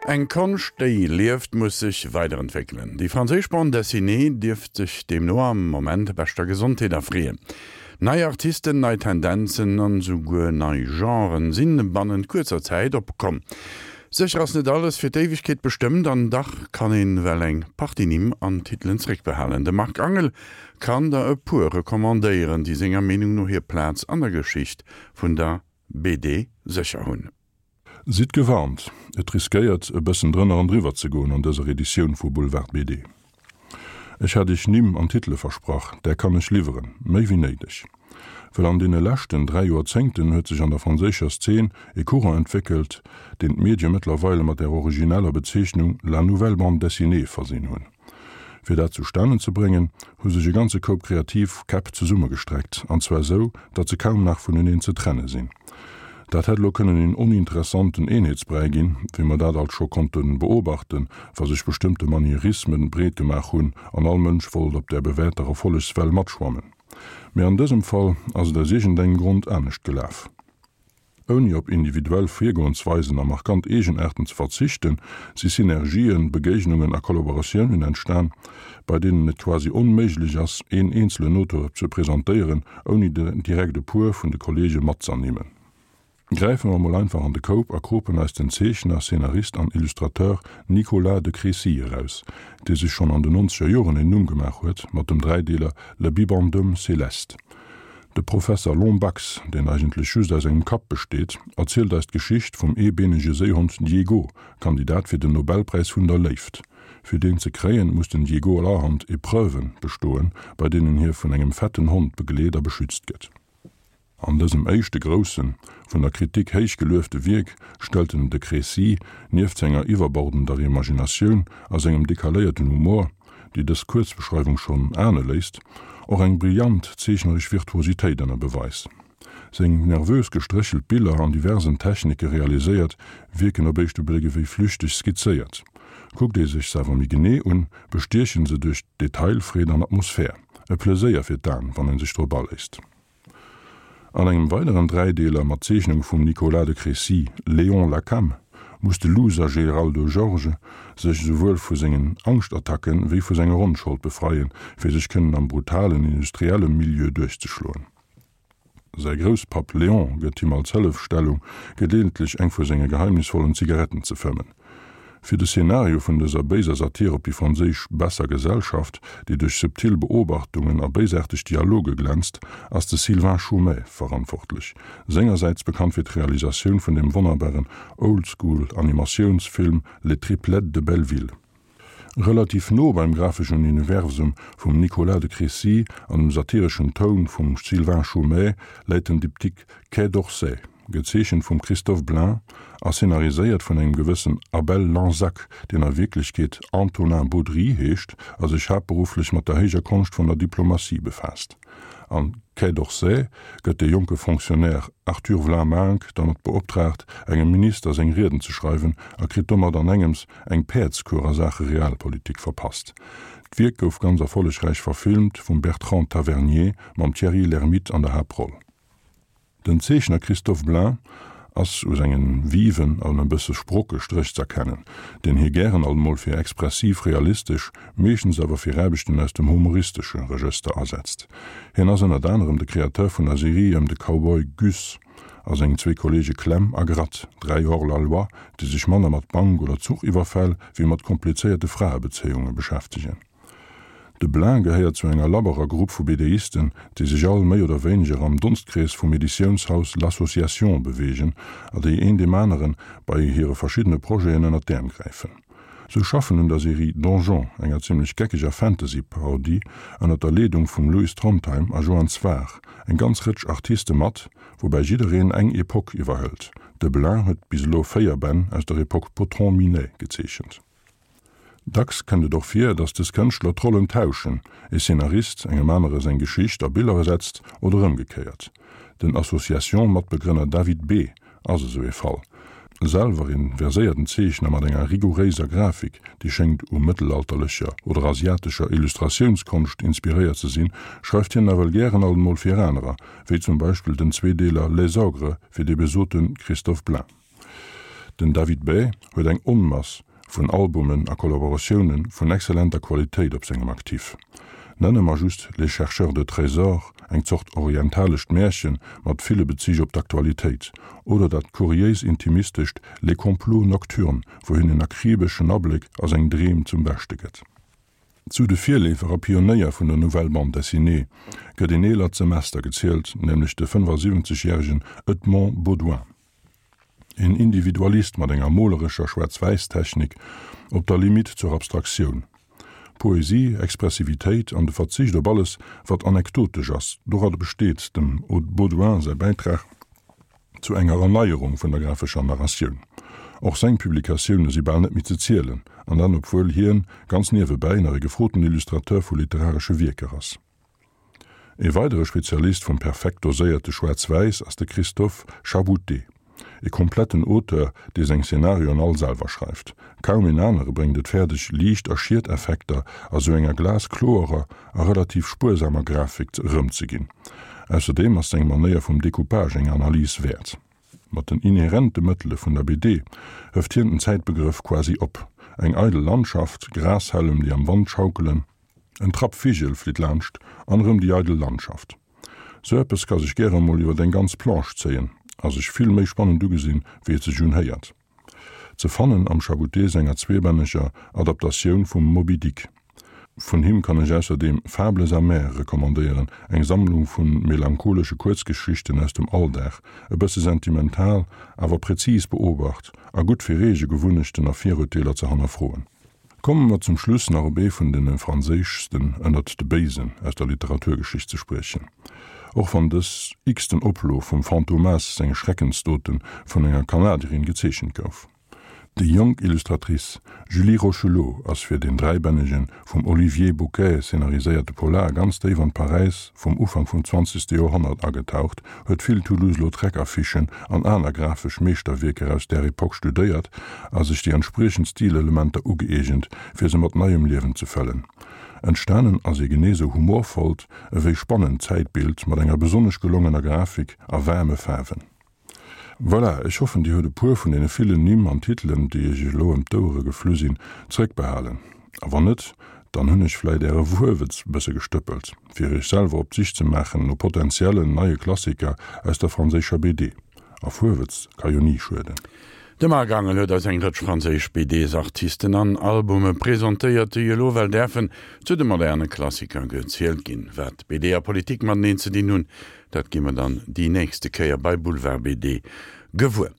Eng Konscht, déi lieft, muss sech weiderentwéckelen. Déi franséisch Bande dessinée dierft sech deemno am Moment beschter Gesondheet erfreeën. Nei Artisten, nei Tendenzen an esouguer nei Genren sinn bannent kuerzer Zäit opkomm. Sécher ass net alles fir d'Éiwegkeet bestëmmt an dach kann een well eng Partie Nimm an Titelen zréckbehalen. De Marc Angel kann der e puer recommandéieren, déi senger Meenung no hir Plaz an der Geschicht vun der BD sécher hunn. Sidd gewarnt, et riskéiert e bëssen drënner an driwwer ze goen an dëser Editioun vu Boulevard BD. Ech hat iech Nimm an Titele versprach, där kann ech liwweren, méi wéi néideg. Well an deene leschten 3 Joerzéngten huet sech an der franséischer Szene e Courant entwéckelt, deen d'Medie mëttlerweile mat der origineller Bezeechnung la nouvelle bande dessinée versinn hunn. Fir dat zustanen ze bréngen, hu sech e ganze Koup kreativ Käpp zesummegestreckt, an zwar sou, datt se kaum nach vuneneen ze trenne sinn. Dat hätt elo kënnen een oninteressanten Eenheetsbräi ginn, wéi mer dat alt scho konnte beobachten, wa sech bestëmmte Manierismen breet gemaach hunn an all Mënsch wollt op där bewährter Erfollegswell matschwammen. Mee an dësem Fall ass et aus iergendengem Grond anescht gelaf. Ouni op individuell Virgoensweisen a markant Eegenaarten ze verzichten, si Synergien, Begéignungen a Kollaboratiounen entstan, bei deenen et quasi onméiglech ass, een eenzelen Auteur ze presentéieren, ouni direkt e puer vun de Kolleege matz'ernimmen. Gräife mer mol einfach an de Koup a kropen eis den Zeechner, Szenarist an Illustrateur Nicolas de Crécy eraus, dee sech schonn an den nonzeger Joren een Numm gemaach huet mat dem Dräideeler Le Bibendum Céleste. De Professer Lombax, deen eigentlech just aus engem Kapp besteet, erzielt eis d'Geschicht vum eebeenege Séihond Diego, Kandidat fir den Nobelpräis vun der Léift. Fir deen ze kréien, muss den Diego allerhand Epreuven bestoen, bei deenen hie vun engem fetten Hond begleet a beschützt gëtt. An dësem éischte groussen, vun der Kritik héich geluefte Wierk stellt den de Crécy nieft senger iwwerbordender Imaginatioun a sengem dekaléierten Humor, déi dës Kuerzbeschreiwung schonn ahne léisst, och eng brillant zeechneresch Virtuositéit ënner Beweis. Seng nervös gestréchelt Biller, an diversen Technike realiséiert, wierken op éischte Bléck ewéi flüchteg skizzéiert. Kuckt ee sech se awer méi genee un, bestiechen se duerch Detailfreed an Atmosphär. E Pleséier fir d'An, wann ee sech drop aléisst. An engem weideren Dräideeler mat Zeechnunge vum Nicolas de Crécy, Léon Lacam, muss de Loser Geraldo Georges sech esouwuel vu sengen Angschtattacken wéi vu senger Onschold befreien, fir sech kënnen am brutalen industrielle Milieu duerchzeschloen. Säi Grousspapp Léon gëtt him als Hëllefstellung geleeëntlech eng vu senge geheimnisvollen Zigaretten ze fëmmen. Fir de Szenario vun dëser béiser Satir op déi franséisch besser Gesellschaft, déi duerch subtil Beobachtungen a béisaarteg Dialoge glänzt, ass de Sylvain Chomet verantwortlech, sengersäits bekannt fir d'Realisatioun vun dem wonnerbaren Old-School-Animatiounsfilm Les Triplettes de Belleville. Relativ no beim grafeschen Universum vum Nicolas de Crécy an dem satireschen Toun vum Sylvain Chomet läit den Diptyque Quai d'Orsay, gezeechent vum Christophe Blain a szenariséiert vun engem gewëssen Abel Lanzac, deen a Wierklechkeet Antonin Baudry heescht a sech haaptberufflech mat der héijer Konscht vun der Diplomatie befaasst. Am Quai d'Orsay gëtt de jonke Fonctionnaire Arthur Vlaminck dermat beoptraagt, engem Minister seng Rieden ze schreiwen a kritt domat an engems eng Päerdskur a Saache Realpolitik verpasst. D'Wierk gouf ganz erfollegräich verfilmt vum Bertrand Tavernier mam Thierry Lhermitte an der Haaptroll. Den Zeechner Christophe Blain ass u sengen viven an e bësse sprocke Stréch z'erkennen, deen hie gären alt mol fir expressiv-realistesch, meeschtens awer fir Aarbechten aus dem humoristesche Regëster asetzt. Hien ass ënnert anerem de Kreateur vun der Serie ëm de Cowboy Gus a seng zwee Kolleege Clem a Gratt, 3 Hors-la-loi, déi sech manner mat Bank oder Zuchiwwerfäll wéi mat komplizéierte Fraebezéiunge beschäftegen. De Blain gehéiert zu enger labberer Grupp vu BDisten, déi sech all méi oder wéineger am Donstkrees vum Editiounshaus L'Association beweegen a déi een deem anere bei hire verschiddene Projeten ënner d'Äerm gräifen. Sou schaffen un der Serie Donjon, enger zimmlech geckeger Fantasy-Parodie, ënner der Leedung vum Lewis Trondheim a Joann Sfar, eng ganz Rëtsch Artiste mat, woubäi jiddereen eng Epoque iwwerhëlt. De Blain huet bis elo 4 Bänn aus der Epoque Potron-Minet gezeechent. Dacks kënnt et och vir, datt dës Kënschtler d'Rollen tauschen, e Szenarist engem anere seng Geschicht a Biller ersetzt oder ëmgekéiert. Den Association-Matbegrënner David B. ass esou ee Fall. Selwer een verséierten Zeechner mat enger rigouréiser Grafik, déi schéngt u mëttelalterlecher oder asiatescher Illustratiounskonscht inspiréiert ze sinn, schreift hien nawell gären alt emol fir anerer, wéi zum Beispill den Zweedeeler Les Ogres fir dee besote Christophe Blain. Den David Bay huet eng Onmass vun Albumen a Kollaboratioune vun exzellenter Qualitéit op sengem Actif. Nenne mer just Les chercheurs de trésors, eng Zort orientalescht Märche mat ville Bezich op d'Aktualitéit, oder dat kuriéis intimistescht Les complots nocturnes, wou hien en akribeschen Abléck a seng Dreem zum Beschte gëtt. Zu de Virleefer a Pionéier vun der Nouvelle Bande Dessinée gëtt een eelert Semester gezielt, nämlech de 75 järegen Edmond Beaudoin. Een Individualist mat enger molerescher Schwaarz-Wäiss-Technik op der Limite zur Abstraktioun. Poesie, Expressivitéit an de Verzicht op alles, wat anekdotesch ass, doradder besteet dem Beaudoin säi Bäitrag zu enger Erneierung vun der grafescher Narratioun. Och seng Publikatioune si bal net méi ze zielen, an dat obwuel hien ganz niewebäi nach e gefroten Illustrateur vu literaresche Wierker ass. E weidere Spezialist vum perfekt doséierte Schwaarz-Wäiss ass de Christophe Chabouté, e kompletten Auteur, dee seng Szenarioen all selwer schreift. Kaum een anere bréngt et fäerdeg, Liicht a Schieteffekter a sou enger glaskloerer a relativ spuersamer Grafik erëmzeginn. Ausserdeem ass seng Manéier vum Decoupage eng Analys wäert. Mat den inherente Mëttele vun der BD hëft hien den Zäitbegrëff quasi op. Eng eidel Landschaft, Grashällem, déi am Wand schaukelen, En Trapp Vigel flitt laanscht an erëm déi eidel Landschaft. Sou eppes ka sech gäre mol iwwert eng ganz Planche zéien a sech vill méi spannend ugesinn, wéi et sech unhéiert. Ze fannen am Chabouté senger zweebänneger Adaptatioun vum Moby Dick. Vun him kann ech ausserdeem Fables amères recommandéieren, eng Sammlung vu melancholesche Kuerzgeschichten aus dem Alldag, e bësse sentimental, awer präzis beobacht a gutt fir eege Gewunnechten a Virurteeler ze hannerfroen. Komme mer zum Schluss nach op ee vun de franséischsten ënnert de Béisen aus der Literaturgeschicht ze spriechen. Och wann dës x-ten Oplo vum Fantomas senge Schreckensdote vun enger Kanadierin gezeechent gouf. Déi jonk Illustratrice Julie Rocheleau ass fir deen dräibännege vum Olivier Bouquet szenariséierte Polar ganz déif an d'Paräis vum Ufank vum zwanzegste Joerhonnert agetaucht, huet vill Toulouse-Lautrec-Affichen an aner grafesch Meeschterwierker aus där Epoch studéiert a sech déi entspriechend Stilelementer ugëeegent, fir se mat neiem Liewen ze fëllen. Entstanen ass ee genee sou humorvollt ewéi spannend Zäitbild mat enger besonnesch gelongener Grafik a waarme Faarwen. Voilà, ech hoffen dir huet e puer vun deene villen Nimm an Titelen, déi iech elo ëm d'Ouere geflu sinn, zréckbehalen. A wann net, dann hunn ech vläit äre Wuerwëtz bësse gestëppelt, fir iech selwer op d'Sich ze maachen no potentiellen neie Klassiker aus der franséischer BD. A Fuerwëtz ka jo ni schueden. De Marc Angel huet eis eng Rëtsch franséisch BDs-Artisten an Albume presentéiert, déi elo well däerfen zu de moderne Klassiker gezielt ginn. Wat BD a Politik mateneen ze dinn hunn, Dat gi mer dann déi nächste Kéier bei Boulevard BD gewuer.